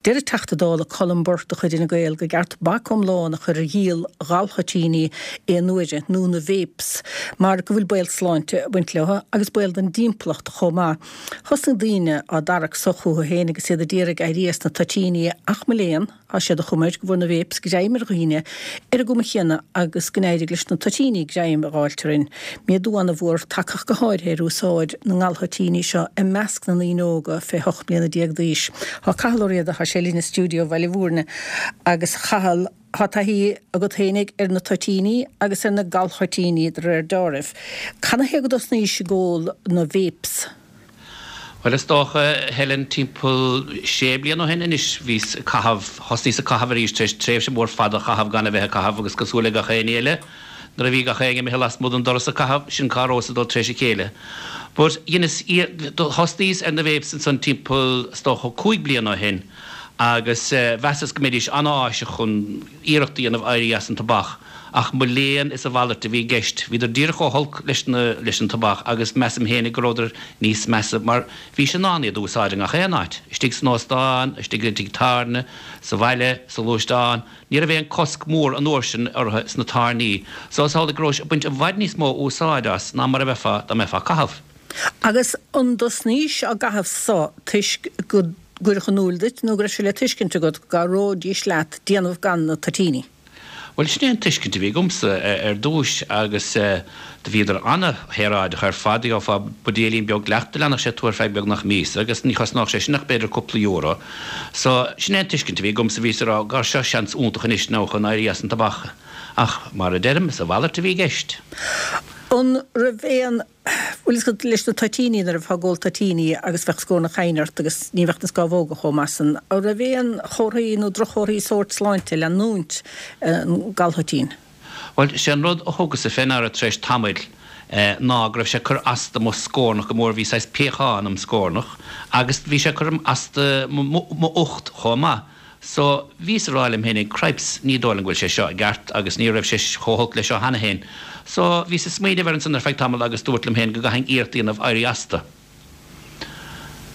Deir an Teachta Dála Colm Burke de chuid Fhine Gael gur ceart bac iomlán a chur ar dhíol ghalthoitíní aon uaire, nó na vapes, mar go bhfuil baol sláinte ag baint leo agus baol don dtimpeallacht chomh maith. Thosnaigh daoine á dtarrac so chucu féin agus iad a d'iarraidh éirí as na toitíní ach mo léan, Tá siad a chuma air go bhfuair na vapes greim ar dhaoine ar an gcuma chéanna agus go n-éirigh leis na toitíní greim a dh'fháilt orainn. Méadú ana-mhór tagtha go háirithe ar úsáid na ngalthoitíní seo i measc na ndaoine óga fé 18 mbliana d'aois. Tá Cathal Ó Riada, tá sé linn i stiúideo Bhaile Mhúirne agus a Chathail, tá taithí agat fhéinig ar na toitíní agus ar na galthoitíní de réir deáraimh. Canathaobh go dtosnaís ag ól na vapes? Bhuel, is dócha, Helen, timpeall sé bliana ó shin anois, bhíos ag caitheamh, thosnaíos ag caitheamh arís tar éis tréimhse mhór fada a chaitheamh gan a bheith ag caitheamh agus cosúil le gach éinne eile, nuair a bhí gach éinne imithe lasmuigh den doras ag caitheamh, sin cá rabhas ag dul tar éis a chéile. But dheineas, thosnaíos ar na vapes ansan timpeall, is dócha, 5 bliana ó shin agus mheasas go mbeidís an-áiseach chun iarracht a dhéanamh éirí as an tobac. Ach mo léan is a mhalairt a bhí i gceist. Bhíodar díreach chomh holc leis na, leis an tobac agus measaim fhéinig go rabhadar níos measa mar bhís in ann iad a úsáid i ngach aon áit, istigh san óstán, istigh i dtigh tábhairne, sa bhaile, sa ghluaisteán. Ní raibh aon cosc mór an uair sin orthu sna tábhairní so is amhlaidh go rabhais ag baint i bhfad níos mó úsáid as ná mar a bheifeá dá mbeifeá ag caitheamh. Agus an dtosnaís á gcaitheamh so toisc go gcuireadh in iúl duit nó go raibh sé le tuiscint agat go gcabhróidís leat déanamh gan na toitíní? Bhuel, sin é an tuiscint a bhí agamsa ar dtúis agus do bhíodar ana-shaoráideach ar fad. Gheofá buidéilín beag leat, do leanfadh sé tú ar feadh beagnach míosa agus ní chosnódh sé sin ach b'fhéidir cúpla euro. So, sin é an tuiscint a bhí agamsa, bhíos ag rá, gabh, seo seans iontach anois now chun éirí as an tobac. Ach, mar a deirim, is a mhalairt a bhí i gceist. An raibh aon Bhfuil fhios agat, leis na toitíní, nuair a bheifeá ag ól toitíní agus bheadh scornach chainne ort agus ní bheadh na scámhóga chomh maith san, an raibh aon chomharthaí nó droch-chomharthaí sóirt sláinte leanúint an galthoitín? Bhuel, sé an rud a thugas-sa fé ndeara tar éis tamaill ná go raibh sé ag cur as do mo scornach go mór, bhí saghas piachán im scornach agus bhí sé ag cur as do m'ucht chomh maith. So, bhíos a rá liom fhéinig, cripes, ní dóigh liom go bhfuil sé seo i gceart agus ní raibh sé chomh holc leis seo cheana fhéin. So, bhíos ag smaoineamh air ansan ar feadh tamaill agus dúrt liom fhéin go gcaithfinn iarracht a dhéanamh éirí astu.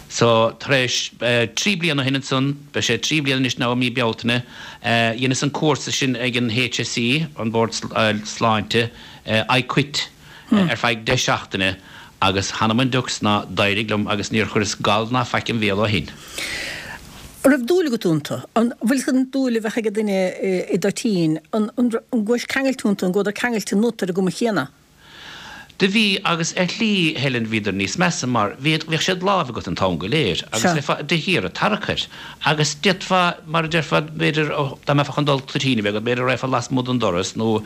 So, tar éis 3 bliana ó shin ansan, beidh sé 3 bliana anois now i mí Bealtaine, dheineas an cúrsa sin ag an HSE, an Bord Sláinte, I Quit. ar feadh 10 seachtaine agus th'anam 'on diucs ná d'éirigh liom agus níor chuireas gal ná faic im bhéal ó shin. An raibh dúil agat iontu? An bhfuil an dúil a bheadh ag duine i dtoitín, an gcuais ceangailte iontu, an gcuadar ceangailte ionat ar an gcuma chéanna? Do bhí, agus ar shlí, Helen, bhíodar níos measa mar bhíod, bhíodh sé id láimh agat an t-am go léir agus bheifeá de shíor ag tarrac air. Agus d'fhéadfá, mar a déarfá, b'fhéidir, dá mbeifeá chun dul toitín a bheith agat, b'fhéidir go raghfá lasmuigh den doras nó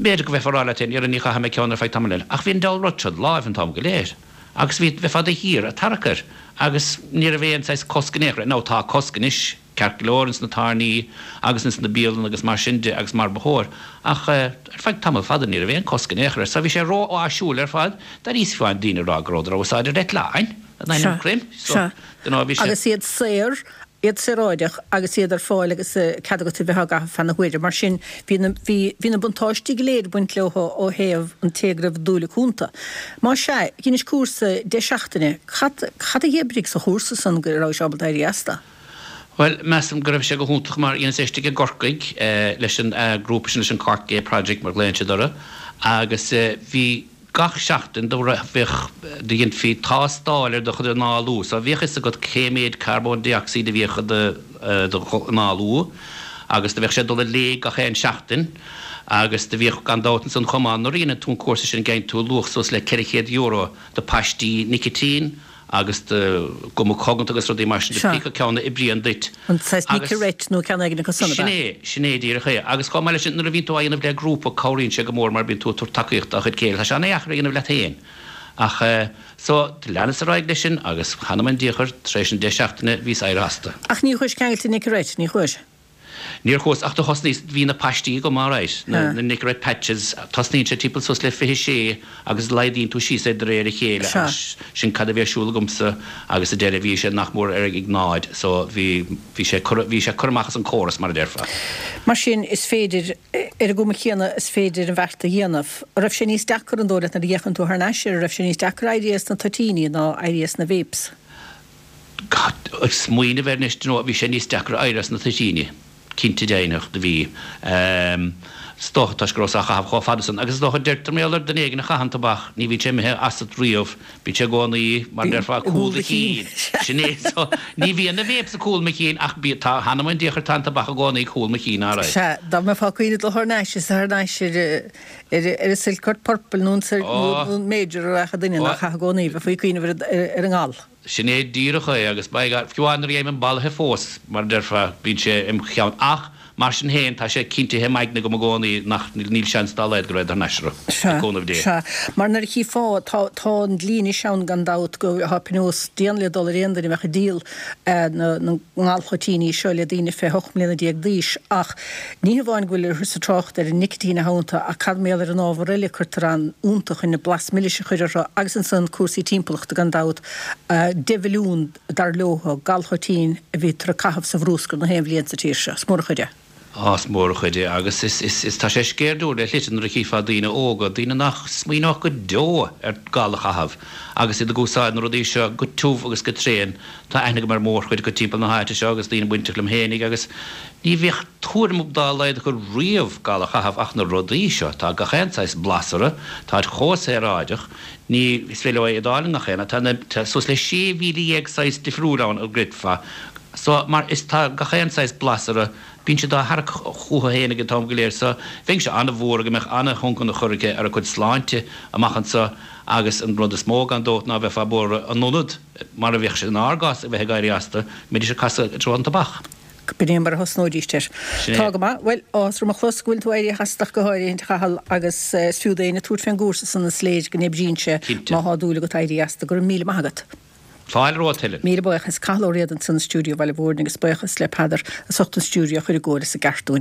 b'fhéidir go mbeifeá ag rá leat féin, 'Dhera, ní chaithfidh mé ceann ar feadh tamaill eile. Ach bhí an diabhal rud seo id láimh an t-am go léir. Agus bhí, bheifeá de shíor ag tarrac air. Agus ní raibh aon saghas cosc in aon chor air. Now tá cosc anois, ceart go leor, ins na tábhairní agus ins na bialanna agus mar sin de agus mar ba chóir. Ach ar feadh tamall fada ní raibh aon cosc in aon chor air. So bhí sé ró-áisiúil ar fad. D'éiríos fiú amháin daoine ag rá go rabhadar á úsáid ar eitleáin. In ainm Chroim. Sea. Agus iad saor, iad saoráideach agus iad ar fáil agus cead agat a bheith á gcaitheamh feadh na huaire. Mar sin, bhí na, bhí, bhí na buntáistí go léir ag baint leo ó thaobh an té go raibh dúil acu iontu. Más ea, dheinis cúrsa 10 seachtaine, cad, cad a dh'oibrigh sa chúrsa san go rabhais ábalta éirí astu? Bhuel, measaim go raibh sé go hiontach mar dheineas é istigh i gCorcaigh leis an grúpa sin, leis an Cork Gay Project mar ghlaonn siad orthu agus bhí, Gach seachtain do bheadh, do dheinfí tástáil ar do chuid análú so bhíodh fhios agat cé méid carbón dé-ocsaíd a bhíodh i do análú agus do bheadh sé ag dul i léig gach aon seachtain agus do bhíodh gan dabht ansan chomh maith nuair a dheineann tú an cúrsa sin geibheann tú luach suas le €400 de paistí nicitín agus de ghuma coganta agus rudaí mar sin de pé acu ceann a oibríonn duit. An saghas Nicorette nó ceann éigin acu san, ab ea? Sin é, sin é díreach é. Agus chomh maith leis sin, nuair a bhíonn tú á dhéanamh le grúpa, cabhraíonn sé go mór mar bíonn tú ag tabhairt tacaíocht dá chuid céile. Tá sé an-dheacair a dhéanamh leat féin. Ach, so, leanas ar aghaidh leis sin agus th'anam 'on diachar, tar éis an 10 seachtaine, bhíos éirithe astu. Ach ní chuais ceangailte Nicorette, ní chuais? Níor chuas, ach do thosnaíos, bhí na paistí agam alright, na Nicorette patches, tosnaíonn sé timpeall suas le 26 agus laghdaíonn tú síos é de réir a chéile agus sin cad a bhí ar siúl agamsa agus sa deireadh bhí sé nach mór ar ag náid so bhí, bhí sé curtha, bhí sé curtha amach as an córas mar a déarfá. Mar sin is féidir, ar an gcuma chéanna is féidir an bheart a dhéanamh. An raibh sé níos deacra an dóigh leat nuair a fhéachann tú thar n-ais air, an raibh sé níos deacra éirí as na toitíní ná éirí as na vapes? Ag smaoineamh air anois, d'you know, bhí sé níos deacra éirí as na toitíní, cinnte deimhneach, do bhí. Is dócha toisc go rabhas á chaitheamh chomh fada san. Agus is dócha, deirtear mar gheall ar duine éigin a chaitheann tobac, ní bhíonn sé imithe asat riamh, bíonn sé i gcónaí, mar a déarfá, i gcúl do chinn. Sin é. So, ní bhíonn na vapes i gcúl mo chinn ach bí, tá, th'anam 'on diachar, tá an tobac i gcónaí i gcúl mo chinn, alright. Sea, dá mbeifeá ag cuimhneamh dul thar n-ais, is thar n-ais ar, ar, ar an Silcourt Purple nó an, nó an Major a rachadh duine nár chaith i gcónaí, bheifí ag cuimhneamh ar, ar an ngal. Sin é díreach é, agus by God, fiú amháin nuair a gheibhim bolaithe fós, mar a déarfá, bíonn sé im cheann. Ach, mar sin féin, tá sé cinntithe im aigne agam i gcónaí nach, níl seans dá laghad go raghad thar n-ais orthu, le cúnamh Dé. Sea, mar nuair a chífeá, tá, tá an dlí anois ann gan dabht go, tá pionós dian le dul ar aon duine a bheadh ag díol na, na ngalthoitíní seo le daoine fé 18 mbliana d'aois ach ní hamháin go bhfuil thusa ag trácht ar an nicitín atá iontu ach cad mar gheall ar an ábhar eile a cuirtear ann iontu chun an blas milis a chur orthu agus ansan cúrsaí timpeallachta gan dabht. 10 mhilliún, dar leo, galthoitín a bhítear ag caitheamh sa bhrúscar na haon bhliain sa tír seo. Is mór an chuid é. Á, is mór an chuid é agus is, is, is, tá sé sceirdiúil le shlite nuair a chífeá daoine óga, daoine nach smaoineodh go deo ar gal a chaitheamh agus iad ag úsáid na rudaí seo go tiubh agus go tréan. Tá aithne agam ar mhórchuid acu timpeall na háite seo agus daoine bainteach liom fhéinig agus ní bheadh tuairim dá laghad acu riamh gal a chaitheamh ach na rudaí seo, tá gach aon saghas blas orthu, táid chomh saoráideach, ní, is féidir leo iad a fháil i ngach aon áit, tá na, tá suas le 16,000 saghas difriúil ann a gcreidfeá. So, mar is tá gach aon saghas blas orthu, bíonn siad á tharrac chucu fhéinig an t-am go léir so bheinnse an-bhuartha go mbeadh an-thionchar aici ar a cuid sláinte amach anso agus an rud is mó gan dabht ná bheifeá buartha in ionad, mar a bheadh sé inár gcás, a bheith ag éirí astu, go mbeidís ag casadh i dtreo an tobac. B'in é mar a thosnóidís air. Sin é. Tá go maith. Bhuel, áthas orm a chlos go bhfuil tú éirithe as ach go háirithe, a Chathail, agus is fiú d'éinne tabhairt fén gcúrsa san is léir go n-oibríonn sé Cinnte. má thá dúil agat éirí astu. Go raibh míle maith agat. Fáilte romhat, Helen. Míle buíochas. Cathal Ó Riada ansan i stiúideo Bhaile Mhúirne agus buíochas le Peadar as ucht an stiúideo a chur i gcóir is i gceart dúinn.